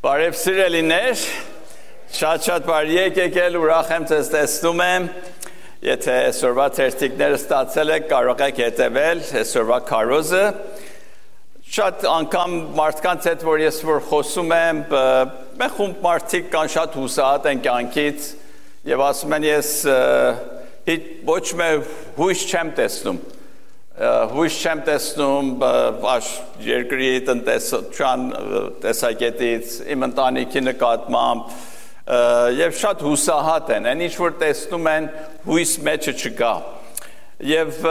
Բարև սիրելիներ, շատ բարի եկել, ուրախ եմ ձեզ տեսնում եմ, եթե այսօրվա թերթիկները ստացել եք, կարող եք հետևել այսօրվա քարոզը, շատ անգամ մարդկանց հետ, որ ես որ խոսում եմ, մեկ խումբ մարդիկ կան շատ հուսահատ են կյանքից և ասում են ես ոչ մեկ հույս չեմ տեսնում, հույս չեմ տեսնում երկրի տնտեսության տեսակետից, իմ ընտանիքի նկատմամբ և շատ հուսահատ են, այն ինչ որ տեսնում են հույս մեջը չկա և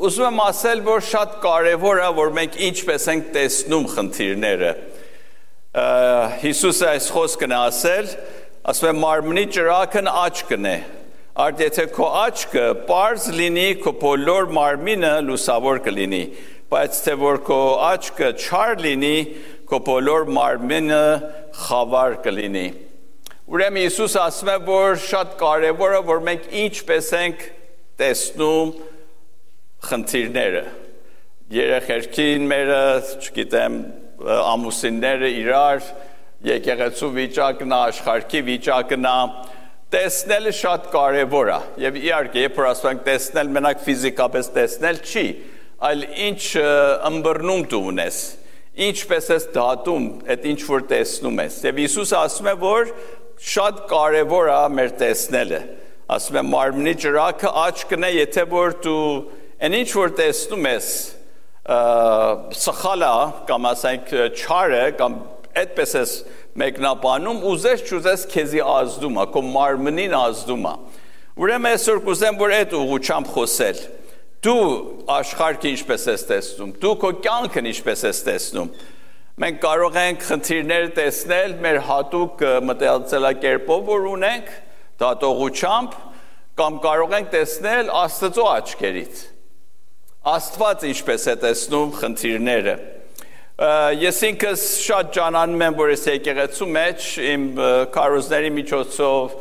ուզում եմ ասել, որ շատ կարևոր է, որ մենք ինչպես ենք տեսնում խնդիրները Հիսուսը այս խոսքն է ասել, ասում է մարմնի ճրագն աչքն է Արդ եթե քո աչքը պարզ լինի, քո բոլոր մարմինը լուսավոր կլինի, բայց թե որ քո աչքը չար լինի, քո բոլոր մարմինը խավար կլինի։ Ուրեմն Հիսուսը ասում է, որ շատ կարևոր է, որ մենք ինչպես ենք տեսնում խնդիրները։ Երեխերքին մերը, չգիտեմ, ամուսինները իրար, եկեղեցու վիճակն է, աշխարհի վիճակն է, տեսնելը շատ կարևոր է և իհարկե երբ որ ասում ենք տեսնել մենակ ֆիզիկապես տեսնել չի, այլ ինչ ըմբռնում դու ունես, ինչպես ես դատում այդ ինչ որ տեսնում ես և Հիսուսը ասում է, որ շատ կարևոր է մեր տեսնելը, ասում է մարմնի ճրագը աչքն է, եթե որ դու այն ինչ որ տեսնում ես սխալ է կամ ասենք չար է կամ այդպես ես մեկնաբանում ուզես չուզես քեզի ազդում է, քո մարմնին ազդում է։ Ուրեմն այսօր կուզեմ, որ այդ ուղղությամբ խոսել։ Դու աշխարհը ինչպես ես տեսնում, դու քո կյանքն ինչպես ես տեսնում։ Մենք կարող ենք խնդիրներ տեսնել մեր հատուկ մտածելակերպով, որ ունենք, դատողությամբ, կամ կարող ենք տեսնել Աստծո աչքերից։ Աստված ինչպես է տեսնում խնդիրները։ Ես ինքս շատ ջանանում եմ, որ ես եկեղեցու մեջ իմ քարոզների միջոցով,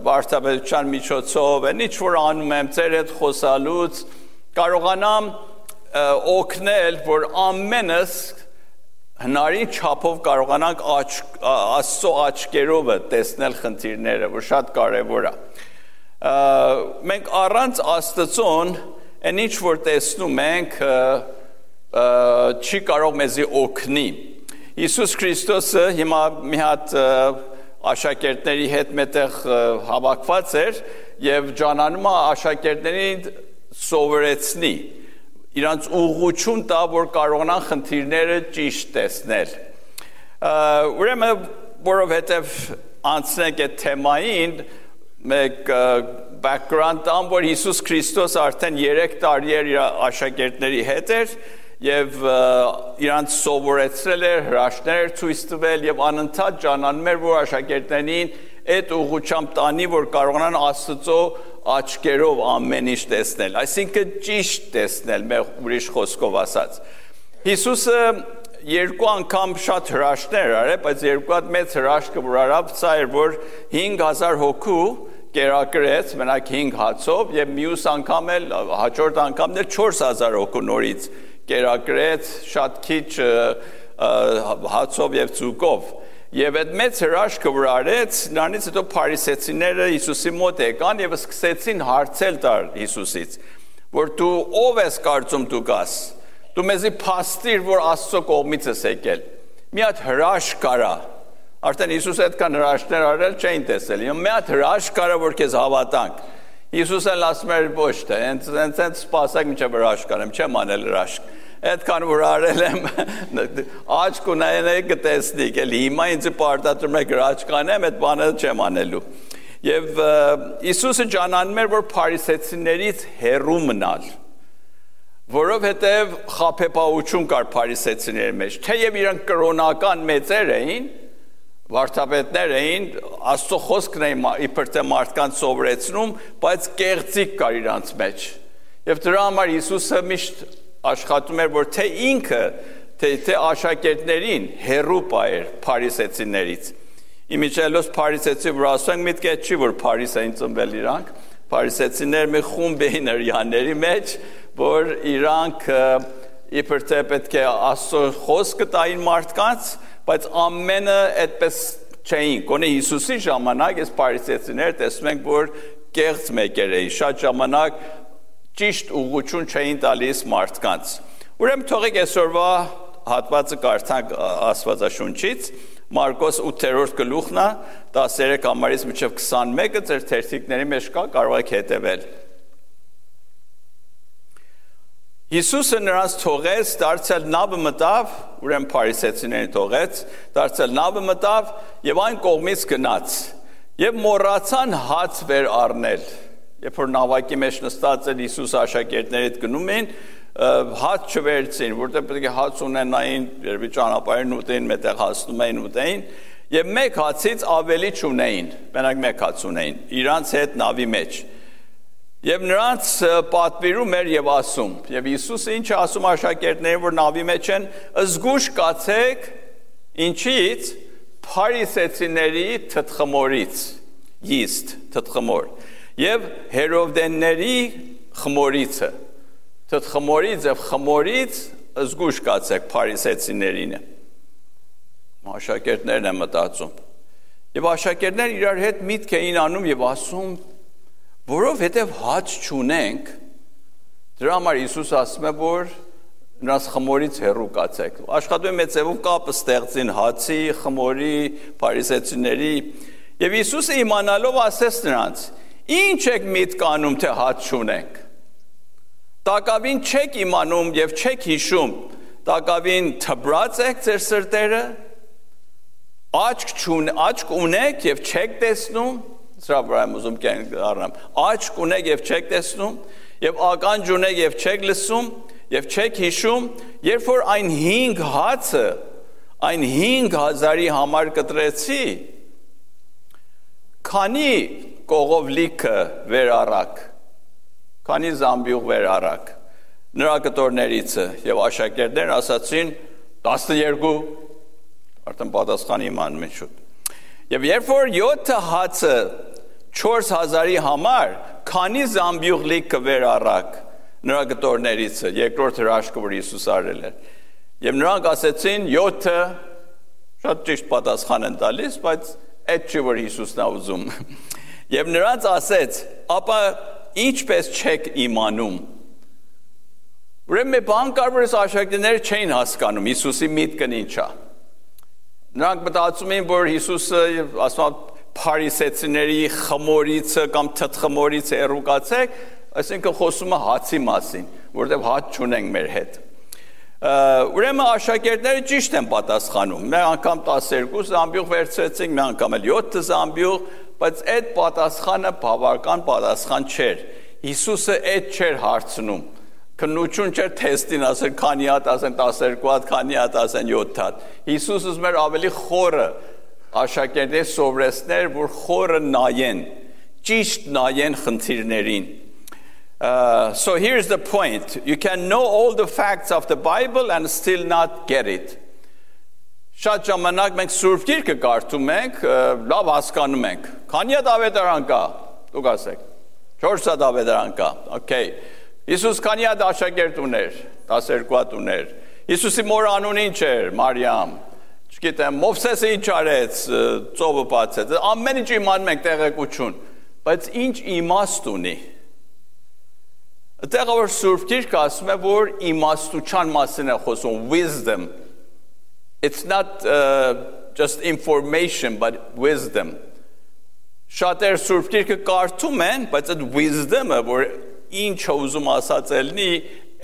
վարդապետության միջոցով, այն ինչ որ անում եմ ձեր հետ խոսալուց, կարողանամ օգնել, որ ամենս հնարին չափով կարողանանք Աստծո աչքերով տեսնել խնդիրները, որ շատ կարևոր է։ Մենք առանց Աստծոն, այն ինչ որ տեսնում ենք, չի կարող մեզի օգնի։ Հիսուս Քրիստոսը հիմա մի հատ աշակերտների հետ մետեղ հավաքված էր և ջանանում է աշակերտներին սովորեցնի, իրանց ուղղություն տա, որ կարողանան խնդիրները ճիշտ տեսնել։ Ուրեմն, որովհետև անցնենք այդ թեմային, մեկ background տամ, որ Հիսուս Քրիստոս արդեն 3 տարի էր իր աշակերտների հետ էր և իրանց սովորեցրել էր, հրաշքներ էր ցույց տվել և անընդհատ ջանանում էր, որ աշակերտներին այդ ուղղությամբ տանի, որ կարողանան Աստծո աչքերով ամեն ինչ տեսնել, այսինքն ճիշտ տեսնել, ուրիշ խոսքով ասած։ Հիսուսը 2 անգամ շատ հրաշքներ արել, բայց 2 հատ մեծ հրաշքը որ արավ, սա էր, որ 5000 հոգու կերակրեց, մենակ 5 հացով և մյուս անգամ էլ, հաջորդ անգամն էլ 4000 հոգու նորից կերակրեց, շատ քիչ հացով և ձուկով։ Եվ այդ մեծ հրաշքը որ արեց, նրանից հետո փարիսեցիները Հիսուսի մոտ եկան և սկսեցին հարցել տալ Հիսուսից, որ դու ով ես կարծում դու կաս, դու մեզի փաստիր, որ Աստծո կողմից ես եկել, մի հատ հրաշք կարա, արդեն Հիսուսը այդքան հրաշքներ արել չէին տեսել, մի հատ հրաշք կարա, որ քեզ հավատանք։ Հիսուսը ասում էր ոչ թե, հենց սպասեք մինչև հրաշք անեմ, չեմ անել հրաշք, այդքան որ արել եմ, աչք ունենեք կտեսնիք, էլ հիմա ինձ պարտադրում եք հրաշք անեմ, այդ բանը չեմ անելու։ Եվ Հիսուսը ջանանում էր, որ փարիսեցիներից հեռու մնալ, որովհետև խաբեբայություն կար փարիսեցիների մեջ, թեև իրանք կրոնական մեծեր էին, վարդապետներ էին, Աստծո խոսքն էին իբր թե մարդկանց սովորեցնում, բայց կեղծիք կար իրանց մեջ։ Եվ դրա համար Հիսուսը միշտ աշխատում էր, որ թե ինքը, թե աշակերտներին հեռու պահեր փարիսեցիներից։ Իմիջիայլոց փարիսեցի, որ ասենք միտք է չի, որ Փարիս էին ծնվել իրանք, փարիսեցիներ մի խումբ էին հրյաների մեջ, որ իրանք իբր թե պետք է Աստծո խոսքը տային մարդկանց, բայց ամենը այդպես չէին։ Գոնե Հիսուսի ժամանակ այս փարիսեցիները տեսնում ենք, որ կեղծ մեկեր էին, շատ ժամանակ ճիշտ ուղղություն չէին տալիս մարդկանց։ Ուրեմն թողեք այսօրվա հատվածը կարդանք Աստվածաշունչից, Մարկոս 8-րդ գլուխն է, 13 համարից մինչև 21-ը ձեր թերթիկների մեջ կա, կարող եք հետևել։ Հիսուսը նրանց թողեց, դարձյալ նավը մտավ, ուրեմն փարիսեցիներին թողեց, դարձյալ նավը մտավ եւ այն կողմից գնաց։ Եվ մոռացան հաց վեր առնել։ Երբ որ նավակի մեջ նստած էր Հիսուսը աշակերտների հետ գնում էին, հաց չվերցին, որտեղ պետք է հաց ունենային, երբ ճանապարհին ուտեին, մետեղ հասնում էին ուտեին, եւ մեկ հացից ավելի չունեին, մենակ մեկ հաց ունեին, իրանց հետ նավի մեջ։ Եվ նրանց պատվիրում էր եւ ասում, եւ Հիսուսը ինչ է ասում աշակերտներին, որ նավի մեջ են, զգուշ կացեք, ինչից փարիսեցիների թթխմորից, yeast, թթխմոր, եւ հերովդենների խմորիցը, թթխմորից եւ խմորից զգուշ կացեք փարիսեցիներինը։ Աշակերտներն են մտածում։ Եվ աշակերտներն իրար հետ միտք էին անում եւ ասում, որովհետև հաց չունենք, դրա համար Հիսուսը ասում է, որ նրանց խմորից հեռու կացեք։ Աշխատում է ձևով կապը ստեղծին հացի, խմորի, փարիսեցիների, եւ Հիսուսը իմանալով ասեց նրանց. Ինչ եք միտք անում, թե հաց չունենք։ Տակավին չեք իմանում եւ չեք հիշում, տակավին թբրած եք ձեր սրտերը, աչք ունեք եւ չեք տեսնում, սրա վրա եմ ուզում կյանք առնեմ, աչք ունեք եւ չեք տեսնում, եւ ականջ ունեք եւ չեք լսում, եւ չեք հիշում, երբ որ այն 5 հացը, այն 5000-ի համար կտրեցի, քանի կողով լիքը վեր առակ, քանի զամբյուղ վեր առակ, նրա կտորներիցը, եւ աշակերտներն ասացին 12, արդեն պատասխան իմանում են շուտ։ Եվ երբ որ 7 հացը 4000-ի համար, քանի զամբյուղ լիքը վեր առակ նրա գտորներիցը, երկրորդ հրաշքը, որ Հիսուս արել էր։ Եվ նրանք ասեցին 7-ը, շատ ճիշտ պատասխան են տալիս, բայց այդ չի, որ Հիսուսն է ուզում։ Եվ նրանց ասեց, ապա ինչպես չեք իմանում։ Ուրեմն մի բան կար, որ աշակերտները չէին հասկանում Հիսուսի միտքն ինչ է։ Նրանք մտածում էին, որ Հիսուսը ասում փարիսեցիների խմորիցը կամ թթխմորից հեռու կացեք, այսինքն խոսում է հացի մասին, որտեղ հաց չունենք մեր հետ։ Ուրեմն աշակերտները ճիշտ են պատասխանում։ Մի անգամ 12 զամբյուղ վերցրեցինք, մի անգամ էլ 7 զամբյուղ, բայց այդ պատասխանը բավական պատասխան չէր։ Հիսուսը այդ չէր հարցնում։ Քննություն չէր թեստին ասել քանի հատ ասեն 12 հատ, քանի հատ ասեն 7 հատ։ Հիսուսը ուզում էր ավելի խորը աշակերտների սովորեցներ, որ խորը նայեն, ճիշտ նայեն խնդիրներին։ So here's the point. You can know all the facts of the Bible and still not get it. Շատ ժամանակ մենք Սուրբ Գիրքը կարդում ենք, լավ հասկանում ենք։ Քանի հատ ավետարան կա, դուք ասեք։ 4 հատ ավետարան կա։ Okay. Հիսուս քանի հատ աշակերտ ուներ, 12 հատ ուներ։ Հիսուսի մոր անունը ինչ էր, Մարիամ։ Չգիտեմ, Մովսեսը ինչ արեց, ծովը բացեց։ Ամեն ինչ իմանում ենք տեղեկություն, բայց ինչ իմաստ ունի։ Այդտեղ որ Սուրբ Գիրքը ասում է, որ իմաստության մասին է խոսում, wisdom. It's not just information, but wisdom. Շատեր Սուրբ Գիրքը կարդում են, բայց այդ wisdom-ը, որ ինչ ուզում ասած ելնի,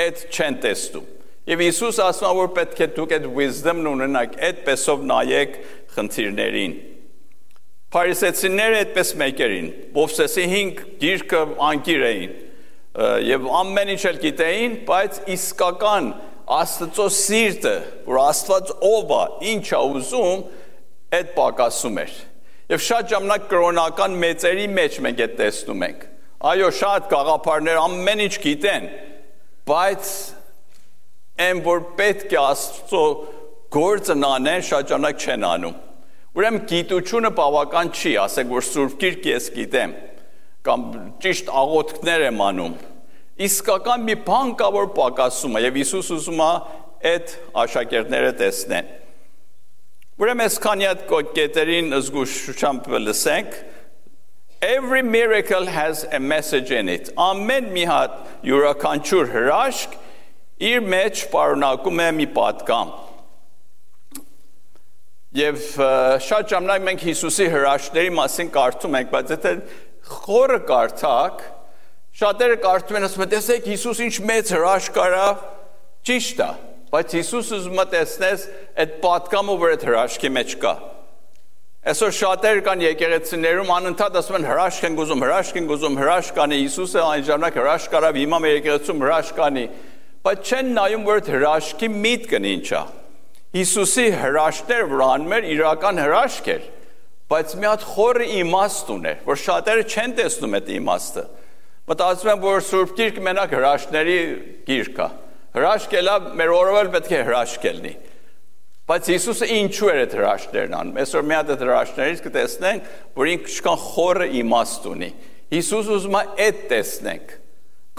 այդ չեն տեսնում։ Եվ Հիսուս ասում է, որ պետք է դուք այդ wisdom-ն ունենաք, այդպեսով նայեք խնդիրներին։ Փարիսեցիները այդպես մեկերին, Մովսեսի 5 գիրքը անկիր էին, եւ ամեն ինչ էլ գիտեին, բայց իսկական Աստծո սիրտը, որ Աստված ով է, ինչ է ուզում, այդ պակասում էր։ Եվ շատ ժամանակ կրոնական մեծերի մեջ մենք այդ տեսնում ենք։ Այո, շատ գաղափարներ ամեն ինչ գիտեն, բայց այն որ պետք է Աստծո գործն անեն, շատ ժամանակ չեն անում։ Ուրեմն գիտությունը բավական չի, ասենք որ Սուրբ Գիրքը ես գիտեմ, կամ ճիշտ աղոթքներ եմ անում։ Իսկական մի բան կա, որ պակասում է, եւ Հիսուս ուզում է այդ աշակերտները տեսնեն։ Ուրեմն այս քանի հատ կետերին զգուշությամբ լսենք. Every miracle has a message in it. Ամեն մի հատ յուրաքանչյուր հրաշք իր մեջ պարունակում է մի պատգամ։ Եվ շատ ժամանակ մենք Հիսուսի հրաշքների մասին կարդում ենք, բայց եթե խորը կարդակ, շատերը կարդում են ասում են, տեսեք Հիսուս ինչ մեծ հրաշք արավ, ճիշտ է, բայց Հիսուսը ուզում է տեսնես այդ պատգամը, որ այդ հրաշքի մեջ կա։ Այսօր շատերը կան եկեղեցիներում անընդհատ ասում են հրաշք են ուզում, հրաշք կանի, Հիսուսը այն ժամանակ հրաշք արավ, հիմա մեր եկեղեցում հրաշք կանի, բայց չեն նայում, որ այդ հրաշքի միտքն ինչ է։ Հիսուսի հրաշքները, որ անում էր, իրական հրաշք էր, բայց մի հատ խորը իմաստ ուներ, որ շատերը չեն տեսնում այդ իմաստը։ Մտածում են, որ Սուրբ Գիրքը մենակ հրաշքների գիրք է։ Հրաշք էլա, մեր օրով էլ պետք է հրաշք լինի։ Բայց Հիսուսը ինչու էր այդ հրաշքներն անում։ Այսօր մի հատ այդ հրաշքներից կտեսնենք, որ ինչքան խորը իմաստ ունի։ Հիսուսը ուզում է այդ տեսնենք,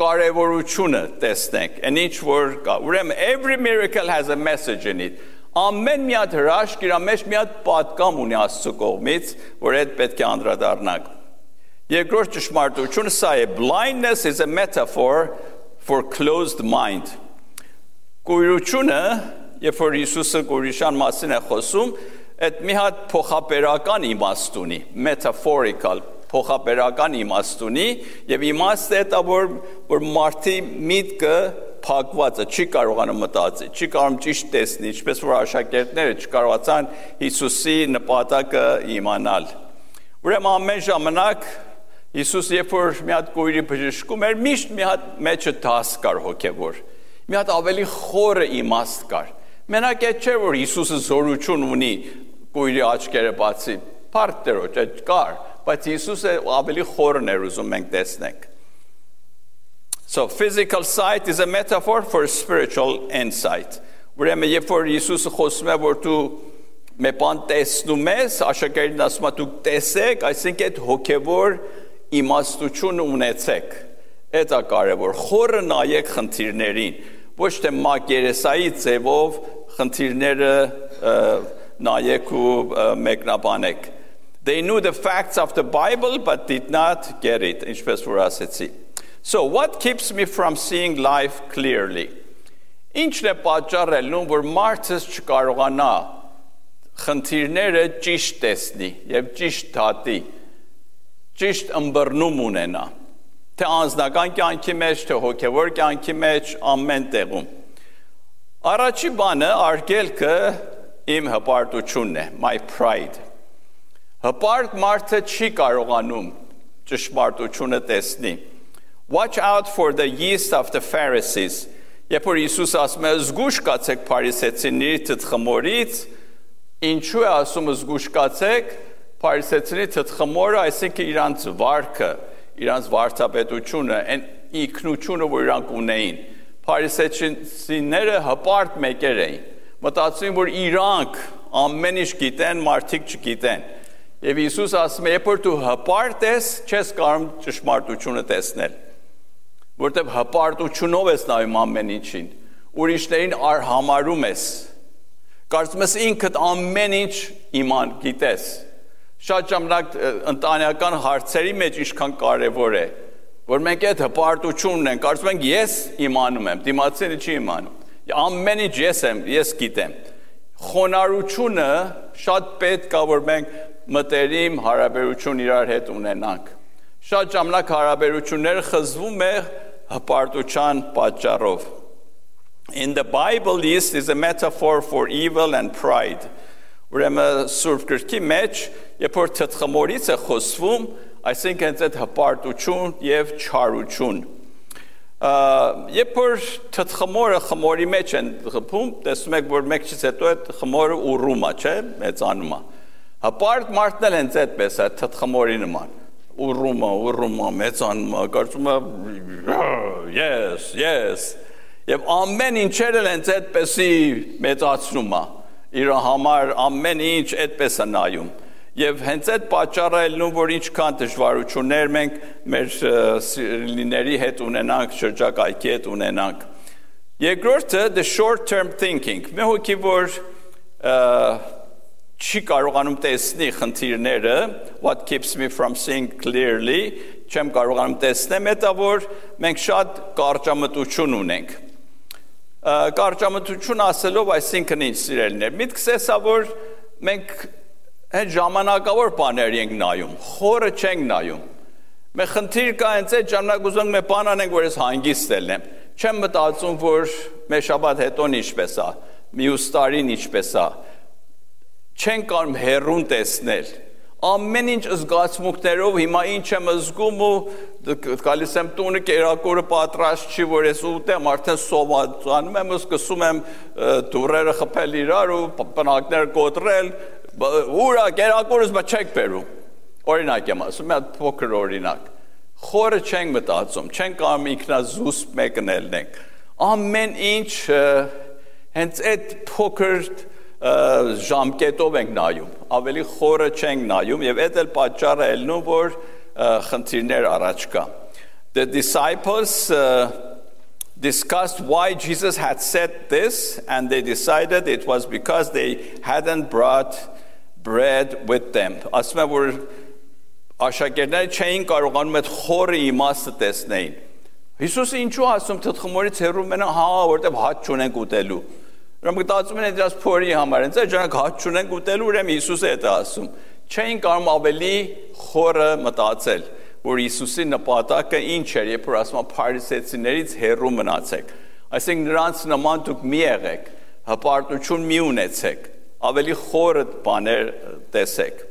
կարևորությունը տեսնենք, այն ինչ որ կա։ Ուրեմն every miracle has a message in it. Ամեն մի հատ հրաշք իր մեջ մի հատ պատգամ ունի Աստծո կողմից, որ այդ պետք է անդրադառնանք։ Երկրորդ ճշմարտությունը սա է. blindness is a metaphor for closed mind. Կույրությունը, երբ որ Հիսուսը կույրության մասին է խոսում, այդ մի հատ փոխաբերական իմաստ ունի, metaphorical, փոխաբերական իմաստ ունի, եւ իմաստը է դա, որ մարդի միտքը փակված է, չի կարողանում մտածել, չի կարողանում ճիշտ տեսնել, ինչպես որ աշակերտները չկարողացան Հիսուսի նպատակը իմանալ։ Ուրեմն ամեն ժամանակ Հիսուս երբ որ մի հատ կույրի բժշկում էր, միշտ մի հատ մեջը դաս կար հոգևոր, մի հատ ավելի խորը իմաստ կար։ Մենակ այդ չէ, որ Հիսուսը զորություն ունի կույրի աչքերը բացի, փառք Տերոջ, այդ կար, բայց Հիսուսը ավելի խորն էր ուզում մենք տեսնենք։ So physical sight is a metaphor for spiritual insight. Ուրեմն երբ որ Հիսուսը խոսում է, որ դու մի բան տեսնում ես, աշակերտին ասում է դու տեսեք, այսինքն այդ հոգևոր իմաստությունը ունեցեք։ Դա կարևոր, խորը նայեք խնդիրներին, ոչ թե մակերեսայի ձևով խնդիրները նայեք ու մեկնաբանեք։ They knew the facts of the Bible but did not get it, ինչպես որ ասեցի։ So what keeps me from seeing life clearly? Ինչն է պատճառելնում, որ մարդը չկարողանա խնդիրները ճիշտ տեսնի եւ ճիշտ դատի, ճիշտ ըմբռնում ունենա, թե անձնական կյանքի մեջ, թե հոգևոր կյանքի մեջ, ամեն տեղում։ Առաջի բանը արգելքը իմ հպարտությունն է, my pride։ Հպարտ մարդը չի կարողանում ճշմարտությունը տեսնի։ Watch out for the yeast of the Pharisees. Երբ որ Հիսուս ասում է զգուշ կացեք փարիսեցիների թթխմորից, ինչու է ասում զգուշ կացեք, փարիսեցիների թթխմորը, այսինքն իրանց վարքը, իրանց վարդապետությունը, այն ինքնությունը, որ իրանք ունեին։ Փարիսեցիները հպարտ մեկեր էին։ Մտածում որ իրանք ամեն ինչ գիտեն, մարդիկ չգիտեն։ Եվ Հիսուս ասում է, երբ որ դու հպարտ ես, չես կարող ճշմարտությունը տեսնել։ Որտեւ հպարտությունով ես նայում ամեն ինչին, ուրիշներին արհամարում ես, կարծում ես ինքդ ամեն ինչ իման գիտես։ Շատ ժամանակ ընտանեկան հարցերի մեջ ինչքան կարևոր է, որ մենք այդ հպարտություն ունենք, կարծում ենք ես իմանում եմ, դիմացինը չի իմանում, ամեն ինչ ես գիտեմ։ Խոնարհությունը շատ պետք է, որ մենք մտերիմ հարաբերություն իրար հետ ունենանք։ Շատ ժամանակ հարաբերությունները խզվում է հպարտության պատճառով։ In the Bible, this is a metaphor for evil and pride. Ուրեմն Սուրբ Գրքի մեջ, երբ որ թթխմորից է խոսվում, այսինքն այդ հպարտություն եւ չարություն։ Երբ որ թթխմորը խմորի մեջ են խփում, տեսնում եք, որ մեկից հետո այդ խմորը ուռում է, չէ՞, մեծանում է։ Հպարտ մարդն էլ հենց այդպես է, թթխմորի նման։ Ուռում է, մեծանում է, կարծում է yes։ Եվ ամեն ինչերը հենց այդպեսի մեծացնում է։ Իր համար ամեն ինչ այդպես է նայում։ Եվ hենց այդ պատճառը ելնում, որ ինչքան դժվարություններ մենք մեր սիրելիների հետ ունենանք, շրջակայքի հետ ունենանք։ Երկրորդը the short term thinking։ Մի հոգի որ չի կարողանում տեսնի խնդիրները, what keeps me from seeing clearly, չեմ կարողանում տեսնեմ, դա որ մենք շատ կարճամտություն ունենք։ Կարճամտություն ասելով, այսինքն ինչ սիրելիներ, միտքս էսա որ մենք հենց ժամանակավոր բաներ ենք նայում, խորը չենք նայում։ Մենք խնդիր կա հենց այդ ժամանակ ուզում ենք բան անենք, որ ես հանգիստ ելնեմ։ Չեմ մտածում, որ մեր շաբաթ հետոն ինչպես է, մյուս տարին ինչպես է։ Չեն կարող հեռուն տեսնել։ Ամեն ինչ զգացմունքներով հիմա ինչ եմ զգում ու գալիս եմ տունը կերակուրը պատրաստ չի, որ ես ուտեմ, արդեն սովածանում եմ, սկսում եմ դուրերը խփել իրար ու պնակներ կոտրել, ուրա կերակուրս բա չեք բերում։ Օրինակ եմ ասում, մի հատ փոքր օրինակ։ Խորը չենք մտածում, չենք կարող ինքնազուսպ մեկն ելնենք։ Ամեն ինչ հենց այդ փոքր ժամկետով ենք նայում, ավելի խորը չենք նայում եւ այդ էլ պատճառը ելնում որ խնդիրներ առաջ կա. The disciples discussed why Jesus had said this and they decided it was because they hadn't brought bread with them. Ասում եմ որ աշակերտները չէին կարողանում այդ խորը իմաստը տեսնեին. Հիսուսը ինչու ասում թխմորից հեռու մնա, հա, որտեղ հաց չունենք ուտելու. Ուրեմն մտածում են դրանց փորի համար, հենց այդ ժամանակ հաց չունենք ուտելու, ուրեմն Հիսուսը է դա ասում։ Չէին կարող ավելի խորը մտածել, որ Հիսուսի նպատակը ինչ էր, երբ որ ասում է փարիսեցիներից հեռու մնացեք։ Այսինքն նրանց նման դուք մի եղեք, հպարտություն մի ունեցեք, ավելի խորը բաներ տեսեք։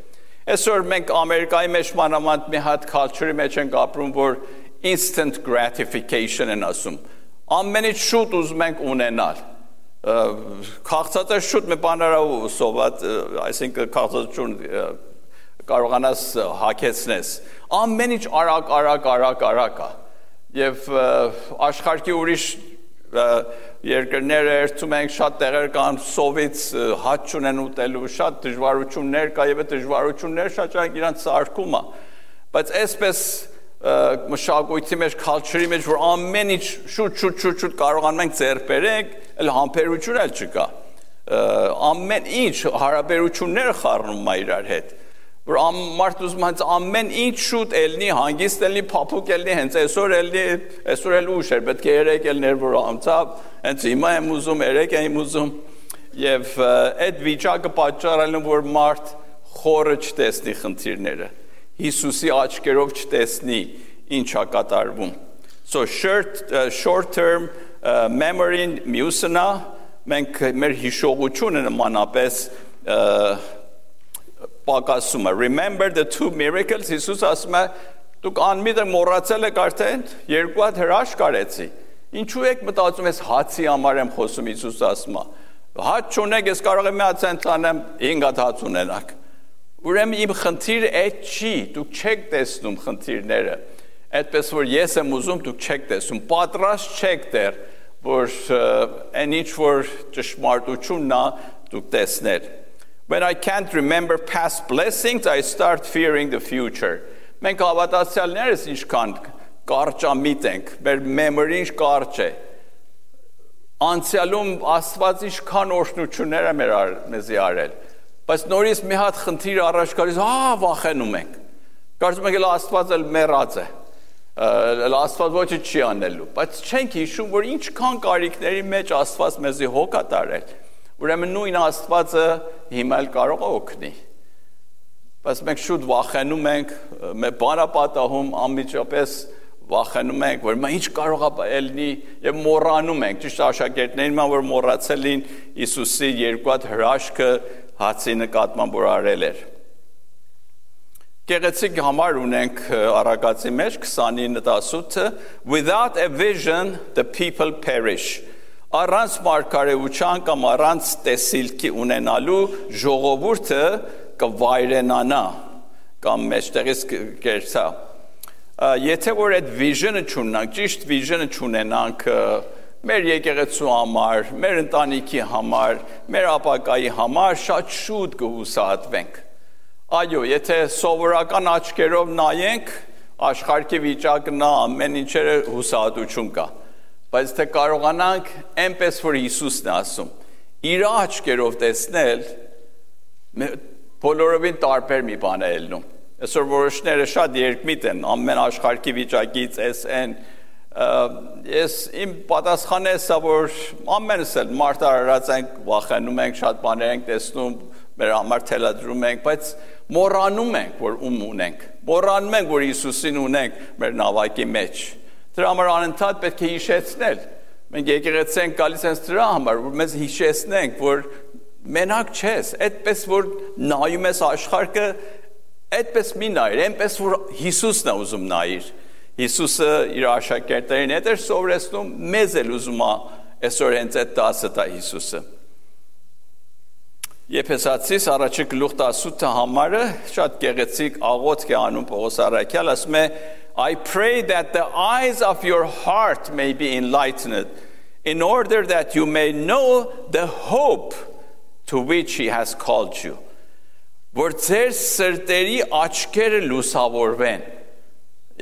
Այսօր մենք Ամերիկայի մեջ մանավանդ մի հատ culture-ի մեջ ենք ապրում, որ instant gratification են ասում։ Ամենից շուտ ուզում ենք ունենալ։ Քաղցածը շուտ մի բաներ սոված, այսինքն քաղցածություն կարողանաս հագեցնես։ Ամեն ինչ արագ է։ Եվ աշխարհի ուրիշ երկրները երթում ենք շատ տեղեր կան սովից հաց չունեն ուտելու, շատ դժվարություններ կա եւ այդ դժվարությունները շատ ճանաչ իրանց սարքում է։ Բայց այսպես մշակույթի մեջ, culture-ի մեջ, որ ամեն ինչ շուտ կարողանում ենք ձեռք բերենք, էլ համբերություն էլ չկա։ Ամեն ինչ հարաբերությունները խառնում է իրար հետ։ Որ մարդ ուզում հենց ամեն ինչ շուտ ելնի, հանգիստ ելնի, փափուկ ելնի, հենց այսօր ելնի, այսօր էլ ուշ էր, պետք է երեք ելներ, որ անցավ, հենց հիմա եմ ուզում, երեք եմ ուզում, եւ այդ վիճակը պատճառ է, որ մարդ խորը չտեսնի խնդիրները։ Հիսուսի աչքերով չտեսնի ինչա կատարվում։ So short term memory-ն մյուսն է, մենք մեր հիշողությունը նմանապես պակասում է։ Remember the two miracles, Հիսուս ասում է, դուք անմիտ մոռացել եք արդեն, երկու հատ հրաշք արեցի։ Ինչու եք մտածում ես հացի համար եմ խոսում, Հիսուս ասում է։ Հաց չունեք, ես կարող եմ մի հատ ցենտ անեմ, 5 հատ հաց ունենաք։ Ուրեմն իմ խնդիրը այդ չի, դուք չեք տեսնում խնդիրները, այդպես որ ես եմ ուզում, դուք չեք տեսնում, պատրաստ չեք դեռ, որ այն ինչ որ ճշմարտությունն է, դուք տեսնել։ When I can't remember past blessings, I start fearing the future. Մենք հավատացյալներս ինչքան կարճամիտ ենք, մեր memory-ն ինչ կարճ է։ Անցյալում Աստված ինչքան օրհնություններ է մեզի արել։ Բայց նորից մի հատ խնդիր առաջ գալիս, վախենում ենք։ Կարծում ենք Աստված էլ մեռած է։ Աստված ոչինչ չի անելու, բայց չենք հիշում, որ ինչքան կարիքների մեջ Աստված մեզի հոգ է տարել։ Ուրեմն նույն Աստվածը հիմա էլ կարող է օգնի։ Բայց մենք շուտ վախենում ենք, մեր բանապատահում անմիջապես վախենում ենք, որ ինչ կարող է ելնի եւ մոռանում ենք։ Ճիշտ աշակերտներին որ մոռացել են Հիսուսի երկու հատ հրաշքը հացի նկատմամբ որ արել էր։ Գեղեցիկ համար ունենք Առակացի մեջ 29:18 Without a vision the people perish. Առանց մարգարեության կամ առանց տեսիլքի ունենալու ժողովուրդը կվայրենանա կամ մեջտեղից կերցա։ Եթե որ այդ vision-ը չունենանք, ճիշտ vision-ը չունենանք մեր եկեղեցու համար, մեր ընտանիքի համար, մեր ապագայի համար շատ շուտ կհուսահատվենք։ Այո, եթե սովորական աչքերով նայենք, աշխարհի վիճակն ամեն ինչերը հուսահատություն կա։ Բայց թե կարողանանք այնպես որ Հիսուսն է ասում, իր աչքերով տեսնել, բոլորովին տարբեր մի բան է ելնում։ Այսօր որոշները շատ երկմիտ են, ամեն աշխարհի վիճակից են, ես իմ պատասխանը է սա, որ ամենս էլ մարտահրած ենք, վախենում ենք, շատ բաներ ենք տեսնում, մեր համար թելադրում ենք, բայց մոռանում ենք, որ ում ունենք, մոռանում ենք, որ Հիսուսին ունենք մեր նավակի մեջ։ Դրա համար անընդհատ պետք է հիշեցնել։ Մենք եկեղեցի ենք գալիս հենց դրա համար, որ մեզ հիշեցնենք, որ մենակ չես, այդպես որ նայում ես աշխարհը, այդպես մի նայր, այնպես որ Հիսուսն է ուզում նայիր։ Հիսուսը իր աշակերտներին հետ էր սովորեցնում, մեզ էլ ուզում է այսօր հենց այդ դասը տա Հիսուսը։ Եփեսացիս առաջի գլուխ 18 համարը շատ գեղեցիկ աղոթք է անում Պողոս առաքյալ, ասում է I pray that the eyes of your heart may be enlightened in order that you may know the hope to which he has called you. Որ ձեր սրտերի աչքերը լուսավորվեն։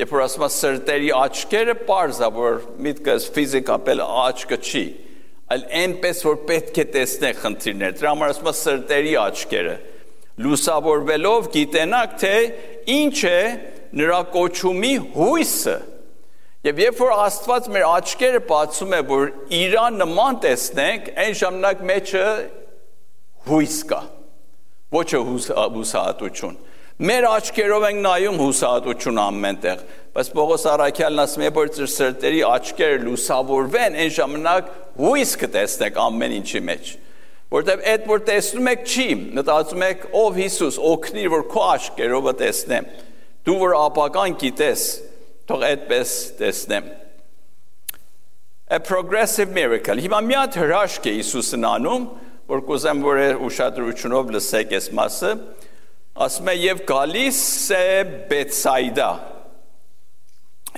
Երբ որ ասում եմ սրտերի աչքերը, պարզ է, որ միտքս ֆիզիկապես աչքը չի, այլ այնպես որ պետք է տեսնեք խնդիրներ։ Դրա համար ասում եմ սրտերի աչքերը լուսավորվելով գիտենաք, թե ինչ է նրա կոչումի հույսը։ Եվ երբ որ Աստված մեր աչքերը բացում է, որ իրան նման տեսնենք, այն ժամանակ մեջը հույս կա, ոչ հուսահատություն։ Մեր աչքերով ենք նայում հուսահատություն ամենտեղ, բայց Պողոս առաքյալն ասում է, որ ձեր սրտերի աչքերը լուսավորվեն, այն ժամանակ հույս կտեսնեք ամեն ինչի մեջ։ Որտեղ այդ որ տեսնում եք չի, մտածում եք ով Հիսուս, օգնիր, որ քո աչքերով տեսնեմ։ Դու որ ապական գիտես, թող այդպես տեսնեմ։ A progressive miracle։ Հիմա մի հատ հրաշք է Հիսուսն անում, որ կուզեմ որ ուշադրությունով լսեք այս մասը, ասում է եւ գալիս է Բեթսայդա։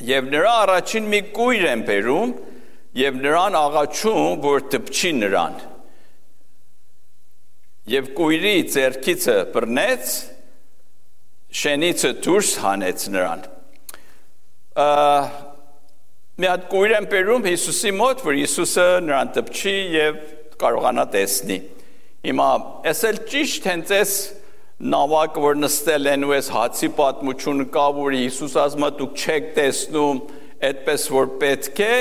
Եվ նրա առաջին մի կույր են բերում եւ նրան աղաչում, որ դպչի նրան։ Եվ կույրի ձեռքիցը բռնեց, շենիցը դուրս հանեց նրան։ Մի հատ կույր են բերում Հիսուսի մոտ, որ Հիսուսը նրան դպչի եւ կարողանա տեսնի։ Հիմա ես էլ ճիշտ հենց այս նավակը որ նստել են ու այս հացի պատմությունը կա, որ Հիսուս ասում է դուք չեք տեսնում այդպես որ պետք է,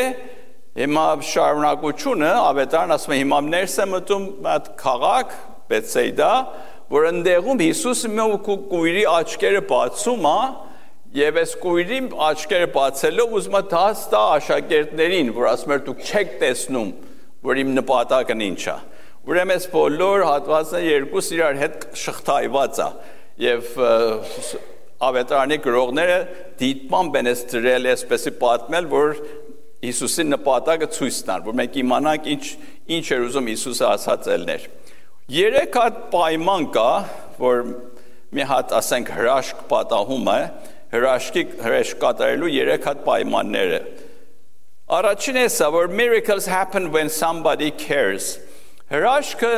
հիմա շարունակությունը ավետարան ասում է հիմա ներս է մտում այդ քաղաք Բեթսայդա, որ ընդեղում Հիսուսը մի կույրի աչքերը բացում է եւ այս կույրի աչքերը բացելով ուզում է դաս տա աշակերտներին, որ ասում է դուք չեք տեսնում որ իմ նպատակն ինչ է։ Ուրեմն այս բոլոր հատվածները երկուս իրար հետ շղթայված է եւ ավետարանի գրողները դիտմամբ են այս դրել այսպեսի պատմել, որ Հիսուսի նպատակը ցույց տան, որ մենք իմանանք ինչ էր ուզում Հիսուսը ասած ելներ։ Երեք հատ պայման կա, որ մի հատ ասենք հրաշք պատահում է, հրաշք կատարելու երեք հատ պայմաններ է։ Առաջինը սա, որ miracles happen when somebody cares։ Հրաշքը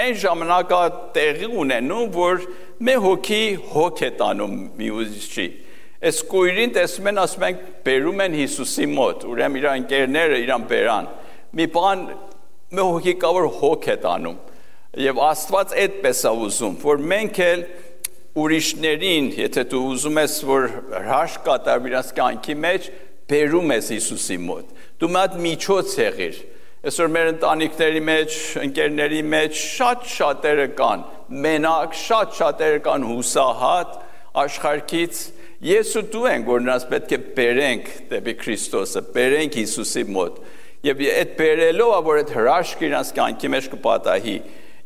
այն ժամանակ տեղի ունենում, որ մի հոգի հոգ է տանում մյուսի։ Այս կույրին տեսնում են, ասում ենք, բերում են Հիսուսի մոտ, ուրեմն իր ընկերները իրան բերան։ Մի բան մի հոգի կա, որ հոգ է տանում։ Եվ Աստված այդպես է ուզում, որ մենք էլ ուրիշներին, եթե դու ուզում ես, որ հրաշք կատարվի իրենց կյանքի մեջ, բերում ես Հիսուսի մոտ։ Դու մի հատ միջոց եղիր։ Այսօր մեր ընտանիքների մեջ, ընկերների մեջ շատ-շատերը կան, մենակ շատ-շատերը կան հուսահատ աշխարհից։ Ես ու դու ենք, որ նրանց պետք է բերենք դեպի Քրիստոսը, բերենք Հիսուսի մոտ։ Եվ այդ բերելով է, որ այդ հրաշքը իրենց կյանքի մեջ կպատահի։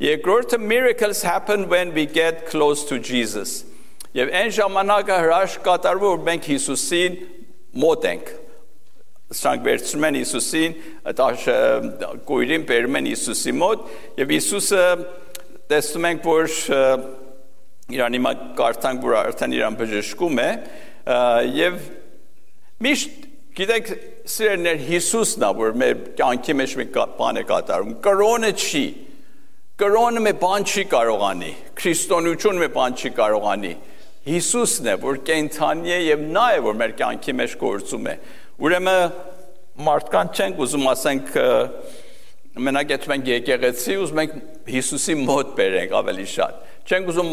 Երկրորդը miracles happen when we get close to Jesus։ Եվ այն ժամանակը հրաշք կատարվում, որ մենք Հիսուսին մոտ ենք։ Սրանք վերցնում են Հիսուսին, կույրին բերում են Հիսուսի մոտ, եւ Հիսուսը տեսնում ենք, որ իրան հիմա կարդանք, որ արդեն իրան բժշկում է, եւ միշտ գիտեք, սիրելիներ, Հիսուսն է, որ մեր կյանքի մեջ մի բան է կատարում, կրոնը չի, կրոնը մի բան չի կարող անի, քրիստոնեությունը մի բան չի կարող անի, Հիսուսն է, որ կենդանի է եւ նա է, որ մեր կյանքի մեջ գործում է։ Ուրեմն մարդկանց չենք ուզում ասենք մենակ եթե մենք եկեղեցի ուզում ենք Հիսուսի մոտ բերենք ավելի շատ։ Չենք ուզում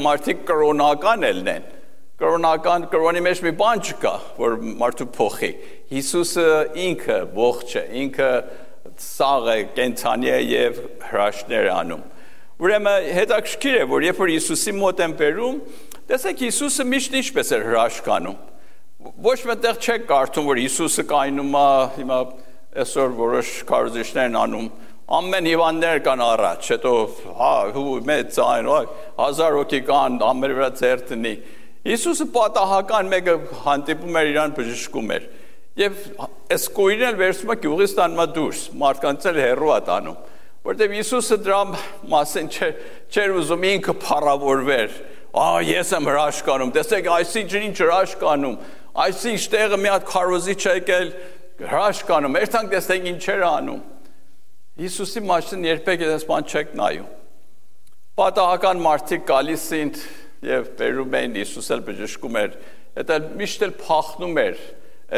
մարդիկ կրոնական ելնեն։ Կրոնի մեջ մի բան չկա, որ մարդու փոխի։ Հիսուսը ինքը ողջ է, ինքը սաղ է, կենցանի է եւ հրաշքներ անում։ Ուրեմն հետաքրքիր է, որ երբ որ Հիսուսի մոտ են բերում, տեսեք Հիսուսը միշտ ինչպես էր հրաշք անում։ Ոչ մտեղ չեք կարդում, որ Հիսուսը կայնում է, հիմա այսօր որոշ քարոզիչներ են անում, ամեն հիվանդներ կան առաջ, հետո մեծ այն, 1000 հոգի կան, ամեն վրա ձեռ տնի։ Հիսուսը պատահական մեկը հանդիպում էր իրան բժշկում էր։ Եվ այս կույրն էլ վերցում է գյուղից տանում դուրս, մարդկանց էլ հեռու է տանում, որտեղ Հիսուսը դրա մասին չէր ուզում ինքը փառավորվեր։ Ես եմ հրաշք անում, տեսեք, այսինչ ինչ հրաշք անում, այսինչ տեղը մի հատ քարոզիչ եկել հրաշք անում, երթանք տեսեք ինչեր անում։ Հիսուսի մասին երբեք այս բան չեք նայում։ Պատահական մարդիկ գալիս էին եւ բերում էին, Հիսուս էլ բժշկում էր, դա միշտ էլ փախնում էր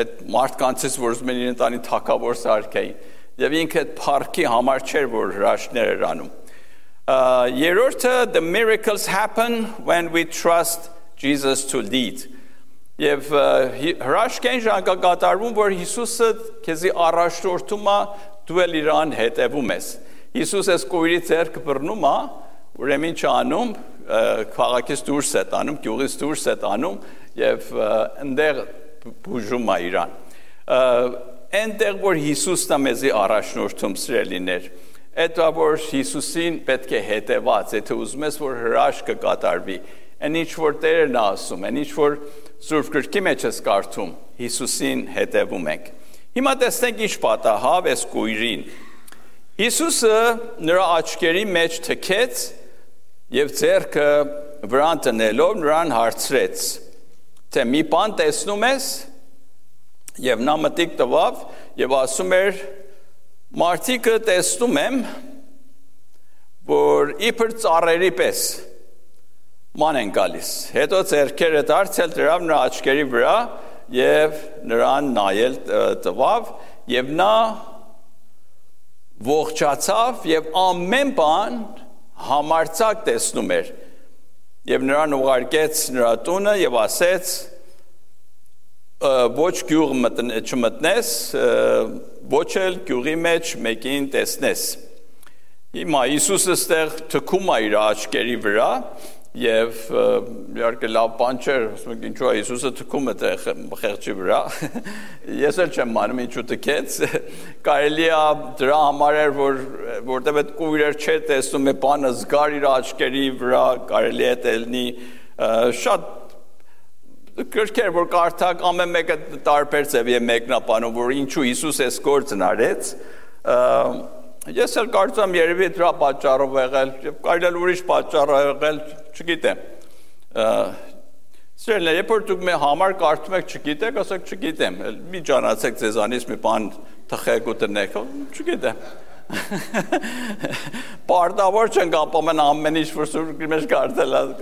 այդ մարդկանցից, որ ուզում են իրեն տանի թակավոր սարքեին, եւ ինքը այդ փառքի համար չէր, որ հրաշքներ էր անում։ Երրորդը, the miracles happen when we trust Jesus to lead։ Եվ հրաշքային ժամկետում, որ Հիսուսը քեզի առաջնորդում է, դու էլ իրան հետևում ես։ Հիսուս այս կույրի ձեռքը բռնում է, ուրեմն ինչ անում, քաղաքից դուրս է տանում, գյուղից դուրս է տանում եւ այնտեղ բուժում է իրան։ Այնտեղ որ Հիսուսն է մեզի առաջնորդում սիրելիներ, այդ որ Հիսուսին պետք է հետևած, եթե ուզում ես որ հրաշքը կատարվի, այն ինչ որ Տերն է ասում, այն ինչ որ Սուրբ Գրքի մեջ ես կարդում, Հիսուսին հետևում ենք։ Հիմա տեսնենք ինչ պատահավ այս կույրին։ Հիսուսը նրա աչքերի մեջ թքեց եւ ձեռքը վրան տնելով նրան հարցրեց, թե մի բան տեսնում ես, եւ նա մտիկ տվավ եւ ասում էր, մարդիկը տեսնում եմ, որ իբր ծառերի պես ման են գալիս։ Հետո ձեռքերը դարձել դրավ նրա աչքերի վրա եւ նրան նայել տվավ եւ նա ողջացավ եւ ամեն բան համարձակ տեսնում էր եւ նրան ուղարկեց նրա տունը եւ ասեց ոչ գյուղ չմտնես ոչ էլ գյուղի մեջ մեկին տեսնես։ Հիմա Հիսուսը ստեղ թքում է իր աչքերի վրա եւ իհարկե լավ բան չէր, ասում եք ինչու է Հիսուսը թքում է խեղճի վրա։ Ես էլ չեմ մանում ինչու թքեց։ Կարելի է դրա համար էր, որտեղ այդ կույրեր չէր տեսնում, է բանը զգար իր աչքերի վրա, կարելի է դելնի շատ գրքեր, որ կարդակ ամեն մեկը տարբեր ձև եւ մեկնաբանում, որ ինչու Հիսուս այս գործն արեց։ Ես էլ կարծում երևի դրա պատճառով եղել, եւ կարելի է ուրիշ պատճառով եղել, չգիտեմ։ Սիրելիներ, երբ որ դուք մի համար կարդում եք, չգիտեք, ասեք չգիտեմ, մի ճանաչեք ձեզանից մի բան թխեք ու տնեք, չգիտեմ։ Պարտավոր չենք ապամեն ամեն ինչ որ Սուրբ Գրքի մեջ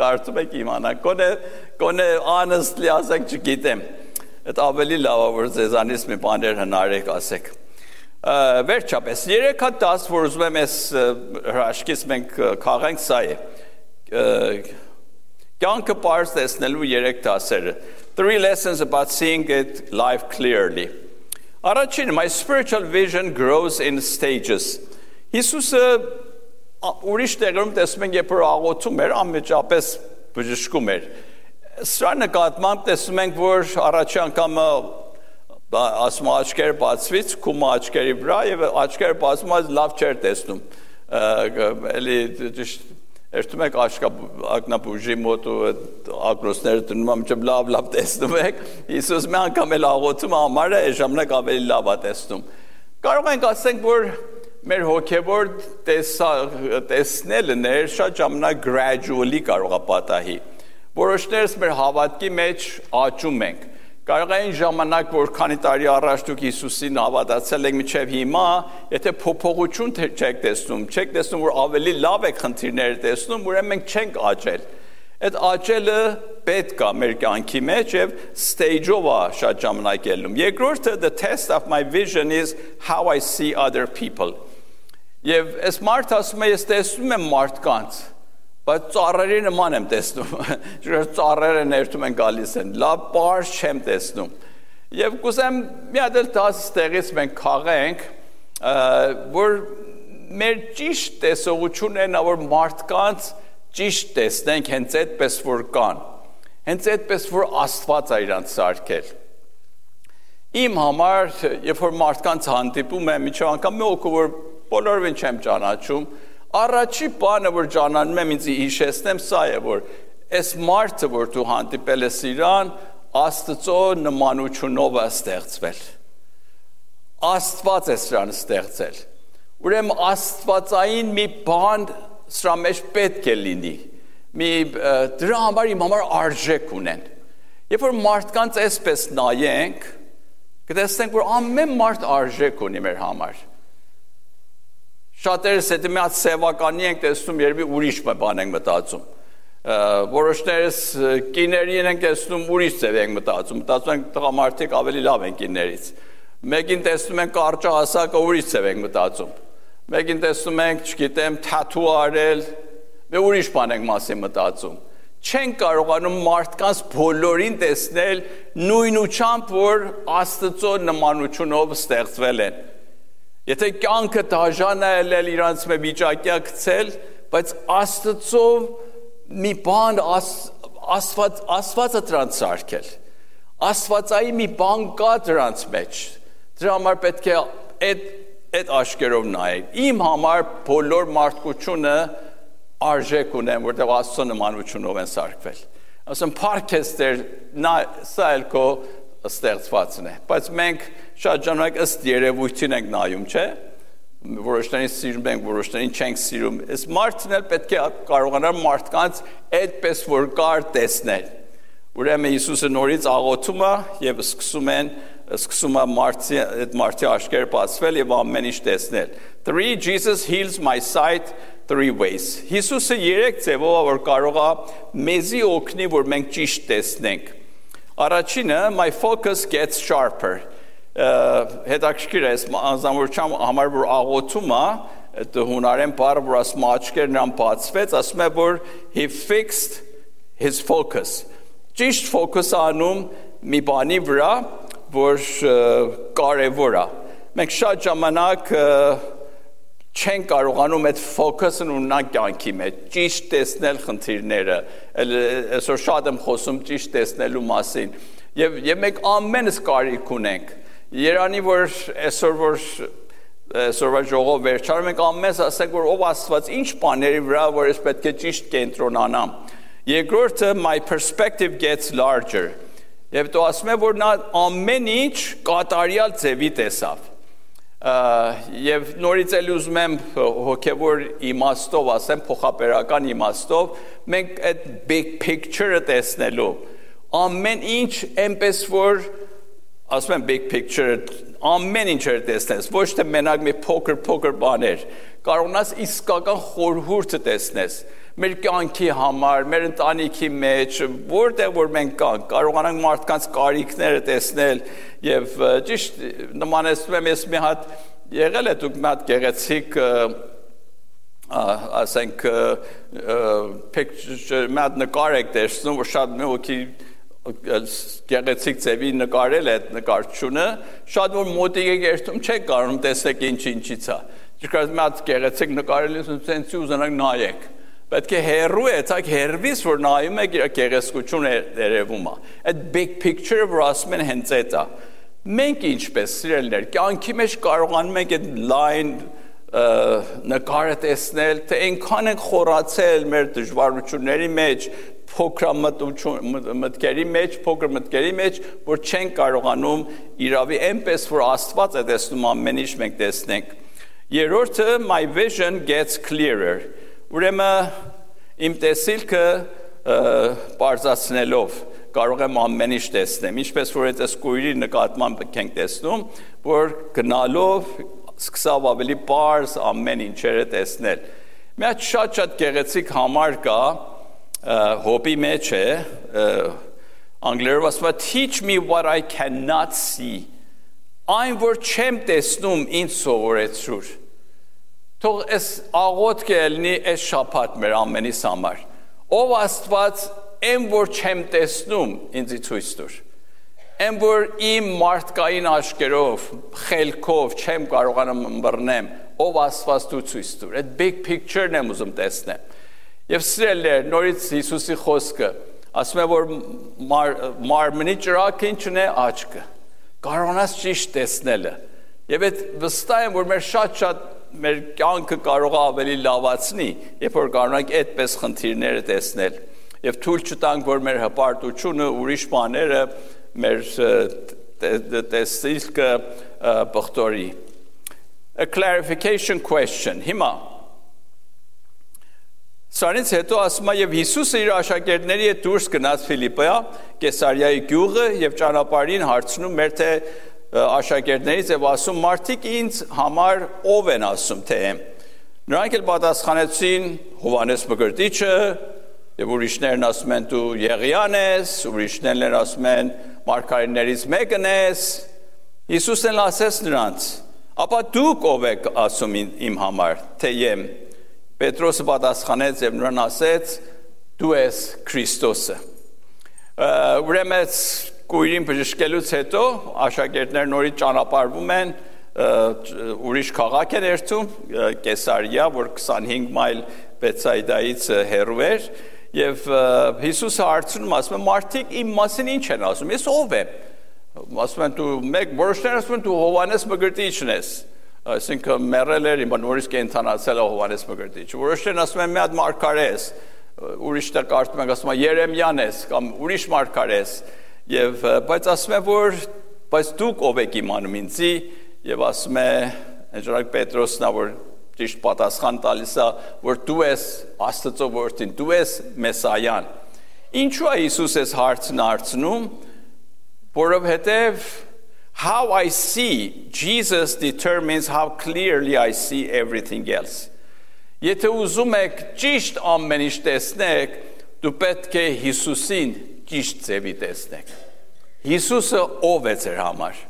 կարդում եք իմանաք, գոնե honestly ասեք չգիտեմ։ Այդ ավելի լավ է որ ձեզանից մի բաներ հնարեք ասեք։ Վերջապես 3-10 որ ուզում եմ այս հրաշքից մենք քաղենք սա է կյանքը պարզ տեսնելու 3 դասերը 3 lessons about seeing it life clearly առաջին my spiritual vision grows in stages Հիսուսը ուրիշ տեղերում տեսնում ենք երբ որ աղոթում էր անմիջապես բժշկում էր սրա նկատմամբ տեսնում ենք որ առաջի անգամը ասում աչքերը բացվից, քումը աչքերի վրա եւ աչքերը բացում այս լավ չէր տեսնում։ Էլի ճիշտ երթում եք ակնաբուժի մոտ ու ակրոսները դնում ամիջը լավ տեսնում եք։ Հիսուս մի անգամ էլ աղոթում համարը այս ժամանակ ավելի լավ է տեսնում։ Կարող ենք ասենք որ մեր հոգեվոր տեսնելը շատ ժամանակ gradually կարող է պատահի։ Որոշներս մեր հավատքի մեջ աճում ենք։ Կարող է այն ժամանակ, որ քանի տարի առաջ դուք Հիսուսին հավատացել եք մինչև հիմա, եթե փոփոխություն չեք տեսնում, որ ավելի լավ եք խնդիրները տեսնում, ուրեմն մենք չենք աճել։ Այդ աճելը պետք է մեր կյանքի մեջ եւ stage-ով է շատ ժամանակ ելնում։ Երկրորդը the test of my vision is how I see other people։ Եվ այս մարդը ասում է ես տեսնում եմ մարդկանց, բայց ծառերի նման եմ տեսնում, ծառերը ներթում են գալիս են, լավ պարզ չեմ տեսնում, և կուզեմ մի հատ էլ ստեղից մենք քաղենք, որ մեր ճիշտ տեսողությունն է, որ մարդկանց ճիշտ տեսնենք հենց այդպես որ կան, հենց այդպես որ Աստված է իրանց սարքել։ Իմ համար, երբ որ մարդկանց հանդիպում եմ, միջև անգամ մի օգու, որ բոլորովին չեմ ճանաչում, առաջի բանը, որ ճանաչում եմ ինձ հիշեցնեմ, սա է, որ այս մարդը, որ դու հանդիպել ես իրան, Աստծո նմանությունով է ստեղծվել։ Աստված է սրան ստեղծել։ Ուրեմն աստվածային մի բան սրա մեջ պետք է լինի։ Դրա համար իմ համար արժեք ունեն։ Երբ որ մարդկանց այսպես նայենք, կտեսնենք, որ ամեն մարդ արժեք ունի մեր համար։ Շատերս հետո մի հատ սևականի ենք տեսնում, երբի ուրիշ բան ենք մտածում։ Որոշներս կիներին ենք տեսնում, ուրիշ ձև ենք մտածում ենք տղամարդիկ ավելի լավ են կիներից։ Մեկին տեսնում ենք կարճահասակը, ուրիշ ձև ենք մտածում։ Մեկին տեսնում ենք, չգիտեմ, թաթու արել, ուրիշ բան ենք մասին մտածում։ Չեն կարողանում մարդկանց բոլորին տեսնել նույնությամբ, որ Աստծո նմանությունով ստեղծվել են։ Եթե կյանքը դաժան է ելել իրանց մի վիճակյա գցել, բայց Աստծո մի բան Աստվածը դրանց սարքել։ Աստվածայի մի բան կա դրանց մեջ։ Դրա համար պետք է այդ աշկերով նայել։ Իմ համար բոլոր մարդկությունը արժեք ունեն, որտեղ Աստծո նմանությունով են սարքվել։ Ասում փառքես Տեր, սա էլ քո ստեղծվածն է, բայց մենք շատ ժամանակ ըստ երևույթին ենք նայում, չէ՞։ Որոշներին սիրում ենք, որոշներին չենք սիրում։ Այս մարդն էլ պետք է կարողանար մարդկանց այդպես որ կար տեսնել։ Ուրեմն Հիսուսը նորից աղոթում է եւ սկսում է մարդի աչքերը բացվել եւ ամեն ինչ տեսնել։ 3 Jesus heals my sight 3 ways. Հիսուսը 3 ձևով որ կարող է մեզի օգնի, որ մենք ճիշտ տեսնենք։ Առաջինը, my focus gets sharper. Հետաքրքիր է, անձնավորության համար որ աղոթում է, այդ հունարեն բառը, որ ասում աչքերն նրան բացվեց, ասում է, որ he fixed his focus. Ճիշտ ֆոկուս անում մի բանի վրա, որ կարևոր է։ Մենք շատ ժամանակ չեն կարողանում այդ ֆոկուսն ունենալ կյանքի մեջ, ճիշտ տեսնել խնդիրները, այսօր շատ եմ խոսում ճիշտ տեսնելու մասին, և մենք ամենս կարիք ունենք, երանի որ այսօրվա ժողով վերջանում ենք ամենս ասենք, որ ով Աստված ինչ բաների վրա, որ ես պետք է ճիշտ կենտրոնանամ։ Երկրորդը, my perspective gets larger, և դու ասում է, որ նա ամեն ինչ կատարյալ ձևի տեսավ։ Եվ նորից էլ ուզում եմ հոգևոր իմաստով ասեմ, փոխաբերական իմաստով, մենք այդ big picture-ը տեսնելու, ամեն ինչ այնպես որ, ասում եմ big picture-ը, ամեն ինչ էր տեսնես, ոչ թե մենակ մի փոքր բաներ, կարողանաս իսկական խորհուրդը տեսնես, մեր կյանքի համար, մեր ընտանիքի մեջ, որտեղ որ մենք կանք, կարողանանք մարդկանց կարիքները տեսնել եւ ճիշտ նմանեցնում եմ ես մի հատ եղել է դուք մի հատ գեղեցիկ ասենք մի հատ նկար եք տեսնում, որ շատ մի հոգի գեղեցիկ ձևի նկարել է այդ նկարչությունը, շատ որ մոտիկ եք երթում չեք կարողանում տեսեք ինչից է։ Ճիշտ մի հատ գեղեցիկ նկարել ես սենցի ուզենակ նայեք։ Պետք է հերու է, ցակ հերվից, որ նայում եք իր գեղեցկությունը երևում է։ Այդ big picture-ը, որ ասում են հենց այդ է։ Մենք ինչպես սիրելիներ, կյանքի մեջ կարողանում ենք այդ լայն նկարը տեսնել, թե այնքան ենք խորացել մեր դժվարությունների մեջ, փոքր մտքերի մեջ, որ չենք կարողանում իրավի այնպես, որ Աստված է տեսնում ամեն ինչ մենք տեսնենք։ Երրորդը, my vision gets clearer. Ուրեմն իմ տեսիլքը բարձրացնելով կարող եմ ամեն ինչ տեսնեմ, ինչպես որ այդ կույրի նկատմամբ ենք տեսնում, որ գնալով սկսավ ավելի բարձ ամեն ինչերը տեսնել։ Մի հատ շատ գեղեցիկ համար կա, հոբի մեջ է, անգլերով ասում է teach me what I cannot see, այն որ չեմ տեսնում ինձ սովորեցրու։ Թող այս աղոթքը ելնի այս շաբաթ մեր ամենիս համար։ Ով Աստված, այն որ չեմ տեսնում, ինձ ցույց տուր։ Այն որ իմ մարդկային աչքերով, խելքով չեմ կարողանում ըմբռնեմ, ով Աստված դու ցույց տուր։ Այդ big picture-ն եմ ուզում տեսնեմ։ Եվ սիրելիներ, նորից Հիսուսի խոսքը, ասում է որ մարմնի ճրագը ինչն է աչքը։ Կարողանաս ճիշտ տեսնելը։ Եվ այդ վստահ եմ, որ մեր շատ մեր կյանքը կարող է ավելի լավացնի, երբ որ կարողանանք այդպես խնդիրները տեսնել։ Եվ թույլ չտանք, որ մեր հպարտությունը, ուրիշ բաները մեր տեսիլքը բխտորի։ A clarification question. Հիմա Սրանից հետո ասում է եւ Հիսուսը իր աշակերտների հետ դուրս գնաց Ֆիլիպպոյ, Կեսարիայի գյուղը եւ ճանապարհին հարցնում մեր թե աշակերտներից եւ ասում մարդիկ ինձ համար ով են ասում թե եմ։ Նրանք էլ պատասխանեցին Հովհաննես Մկրտիչը եւ ուրիշներն ասում են դու Եղիան ես, ուրիշներն ասում են մարգարեներից մեկն ես։ Հիսուսն ասեց նրանց. ապա դուք ով եք ասում իմ համար թե եմ։ Պետրոսը պատասխանեց եւ նրան ասեց դու ես Քրիստոսը։ Ուրեմն Կույրին բժշկելուց հետո աշակերտները նորից ճանապարհվում են ուրիշ քաղաք են երթում Կեսարիա, որ 25 մայլ Բեթսայդայից հեռու էր եւ Հիսուսը հարցնում ասում է մարդիկ իմ մասին ինչ են ասում ես ով եմ ասում են դու մեկ որոշները ասում են դու Հովհաննես Մկրտիչն ես այսինքն մեռել էր հիմա նորից կենթանացել է Հովհաննես Մկրտիչը որոշներն ասում են մի հատ մարգարե ես ուրիշը կարծում են ասում են Երեմիան ես կամ ուրիշ մարգարե ես եւ բայց ասում է որ բայց դուք ով եք իմանում ինձի եւ ասում է Ժանակ Պետրոսն է որ ճիշտ պատասխան տալիս է որ դու ես Աստծո որդին դու ես Մեսայան ինչու է Հիսուս այս հարցն հարցնում որովհետեւ how I see Jesus determines how clearly I see everything else եթե ուզում եք ճիշտ ամեն ինչ տեսնեք դու պետք է Հիսուսին ճիշտ ձևի տեսնեք Հիսուսը ով է ձեր համար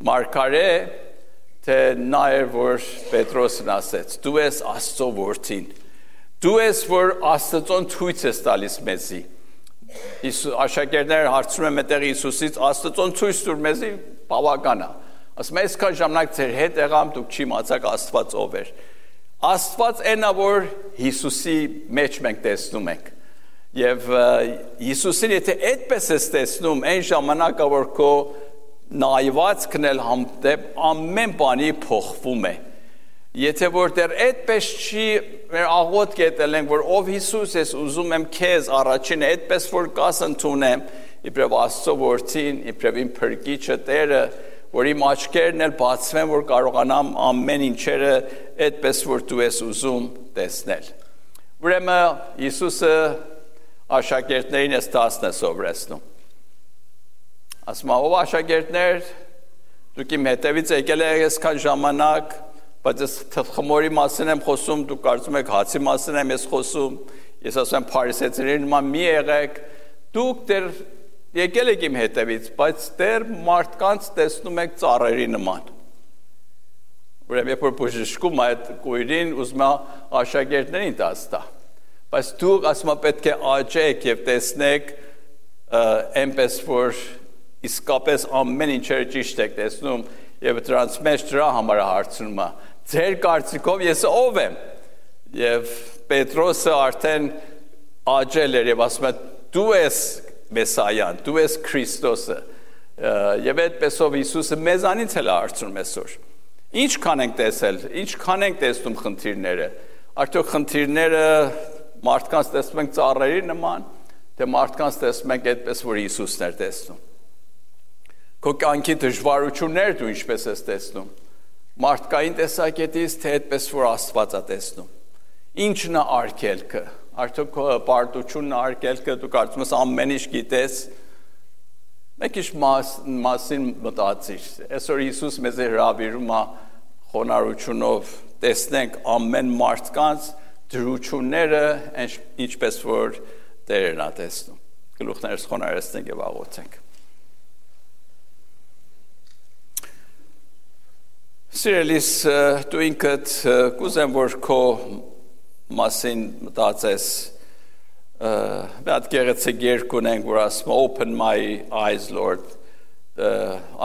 մարգարե թե նա էր որ Պետրոսն ասեց դու ես Աստծո որդին դու ես որ Աստծոն ցույց ես տալիս մեզի աշակերտները հարցնում են մտեղ Հիսուսից Աստծոն ցույց տուր մեզի բավական է ասում է այսքան ժամանակ ձեր հետ եղամ դուք չիմացաք Աստված ով էր Աստված այնա որ Հիսուսի մեջ մենք տեսնում ենք Եվ Հիսուսին եթե այդպես ես տեսնում, այն ժամանակը որ քո նայվածքն էլ համտեպ ամեն բանի փոխվում է։ Եթե որ դեռ այդպես չի մեր աղոթք ետել ենք, որ ով Հիսուս ես ուզում եմ քեզ առաջին այդպես որ կաս ընդունեմ, իբրև Աստծո որդին, իբրև իմ փրկիչը Տերը, որ իմ աչքերն էլ բացվեն, որ կարողանամ ամեն ինչերը այդպես որ դու ես ուզում տեսնել։ Ուրեմն Հիսուսը աշակերտներին ես 10 է սովորեցնում։ Ասում է, ով աշակերտներ, դուք իմ հետևից եկել եք այսքան ժամանակ, բայց ես թխմորի մասին եմ խոսում, դուք կարծում եք հացի մասին եմ ես խոսում, ես ասում եմ փարիսեցիների նման մի եղեք, դուք դեռ եկել եք իմ հետևից, բայց դեռ մարդկանց տեսնում եք ծառերի նման։ Ուրեմն երբ որ բժշկում այդ կույրին ուզում է աշակերտներին տա Բայց դուք ասում պետք է աճեք եւ տեսնեք այնպես որ իսկապես ամեն ինչերը ճիշտ եք տեսնում եւ դրանց մեջ դրա համար հարցնում է ձեր կարծիքով ես ով եմ եւ Պետրոսը արդեն աճել էր եւ ասում է դու ես Մեսայան դու ես Քրիստոսը եւ այդպեսով Հիսուսը մեզանից էլ հարցնում այսօր ինչքան ենք տեսել ինչքան ենք տեսնում խնդիրները արդյոք խնդիրները մարդկանց տեսնում ենք ծառերի նման, թե մարդկանց տեսնում ենք այդպես, որ Հիսուսն էր տեսնում։ Քո կյանքի դժվարությունները դու ինչպես ես տեսնում։ Մարդկային տեսակետից, թե այդպես, որ Աստված է տեսնում։ Ինչն է արգելքը։ Արդյոք քո պարտությունն է արգելքը, դու կարծում ես ամեն ինչ գիտես։ Մեկ ինչ մասին մտածիր։ Այսօր Հիսուս մեզ հրավիրում է խոնարհությունով տեսնենք ամեն մարդկանց դրությունները ինչպես որ Տերն է տեսնում։ Գլուխներս խոնարհեցնենք եւ աղոթենք։ Սիրելիս, դու ինքդ կուզեմ, որ քո մասին մտածես, մի հատ գեղեցիկ երգ ունենք, որ ասում է Open my eyes, Lord,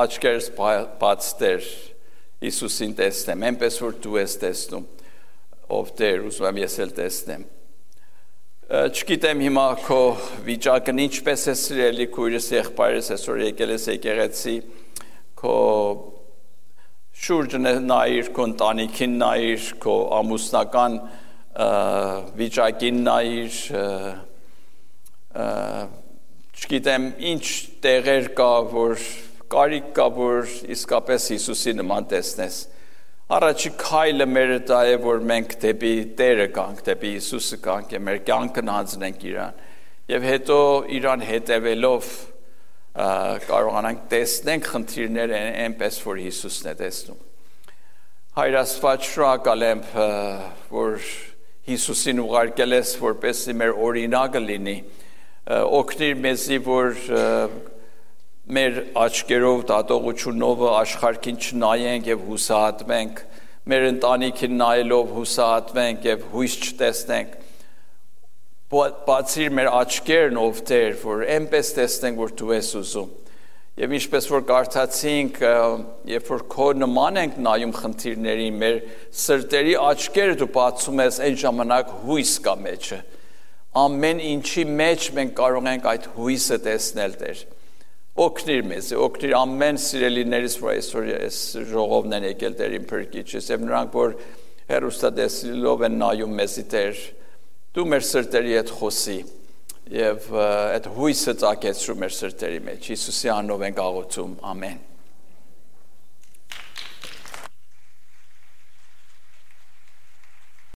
աչքերս բաց Տեր, Հիսուսին տեսնեմ, այնպես որ դու ես տեսնում, ով Տեր, ուզում եմ ես էլ տեսնեմ։ Չգիտեմ հիմա քո վիճակն ինչպես է սիրելի քույրս եղբայրս այսօր եկել ես եկեղեցի, քո շուրջն նայիր, քո ընտանիքին նայիր, քո ամուսնական վիճակին նայիր, չգիտեմ ինչ տեղեր կա, որ կարիք կա, որ իսկապես Հիսուսի նման տեսնես։ Առաջի քայլը մերը դա է, որ մենք դեպի Տերը գանք, դեպի Հիսուսը գանք, եւ մեր կյանքն հանձնենք իրան։ Եվ հետո իրան հետևելով կարողանանք տեսնենք խնդիրները այնպես, որ Հիսուսն է տեսնում։ Հայր Աստված, շնորհակալ եմ, որ Հիսուսին ուղարկել ես, որպեսզի մեր օրինակը լինի, օգնիր մեզի, որ մեր աչքերով դատողությունով աշխարհին չնայենք եւ հուսահատվենք, մեր ընտանիքին նայելով հուսահատվենք եւ հույս չտեսնենք, բացիր մեր աչքերն ով Տեր, որ այնպես տեսնենք, որ դու ես ուզում։ Եվ ինչպես որ կարդացինք, երբ որ քո նման ենք նայում խնդիրներին, մեր սրտերի աչքերը դու բացում ես, այն ժամանակ հույս կա մեջը։ Ամեն ինչի մեջ մենք կարող ենք այդ հույսը տեսնել, Տեր։ Օգնիր մեզ, օգնիր ամեն սիրելիներից, որ այսօր այս ժողովն են եկել Տերին փրկիչս, եւ նրանք, որ հեռուստատեսիլով են նայում մեզի, Տեր, դու մեր սրտերի հետ խոսի եւ այդ հույսը ծագեցրու մեր սրտերի մեջ։ Հիսուսի անունով ենք աղոթում, ամեն։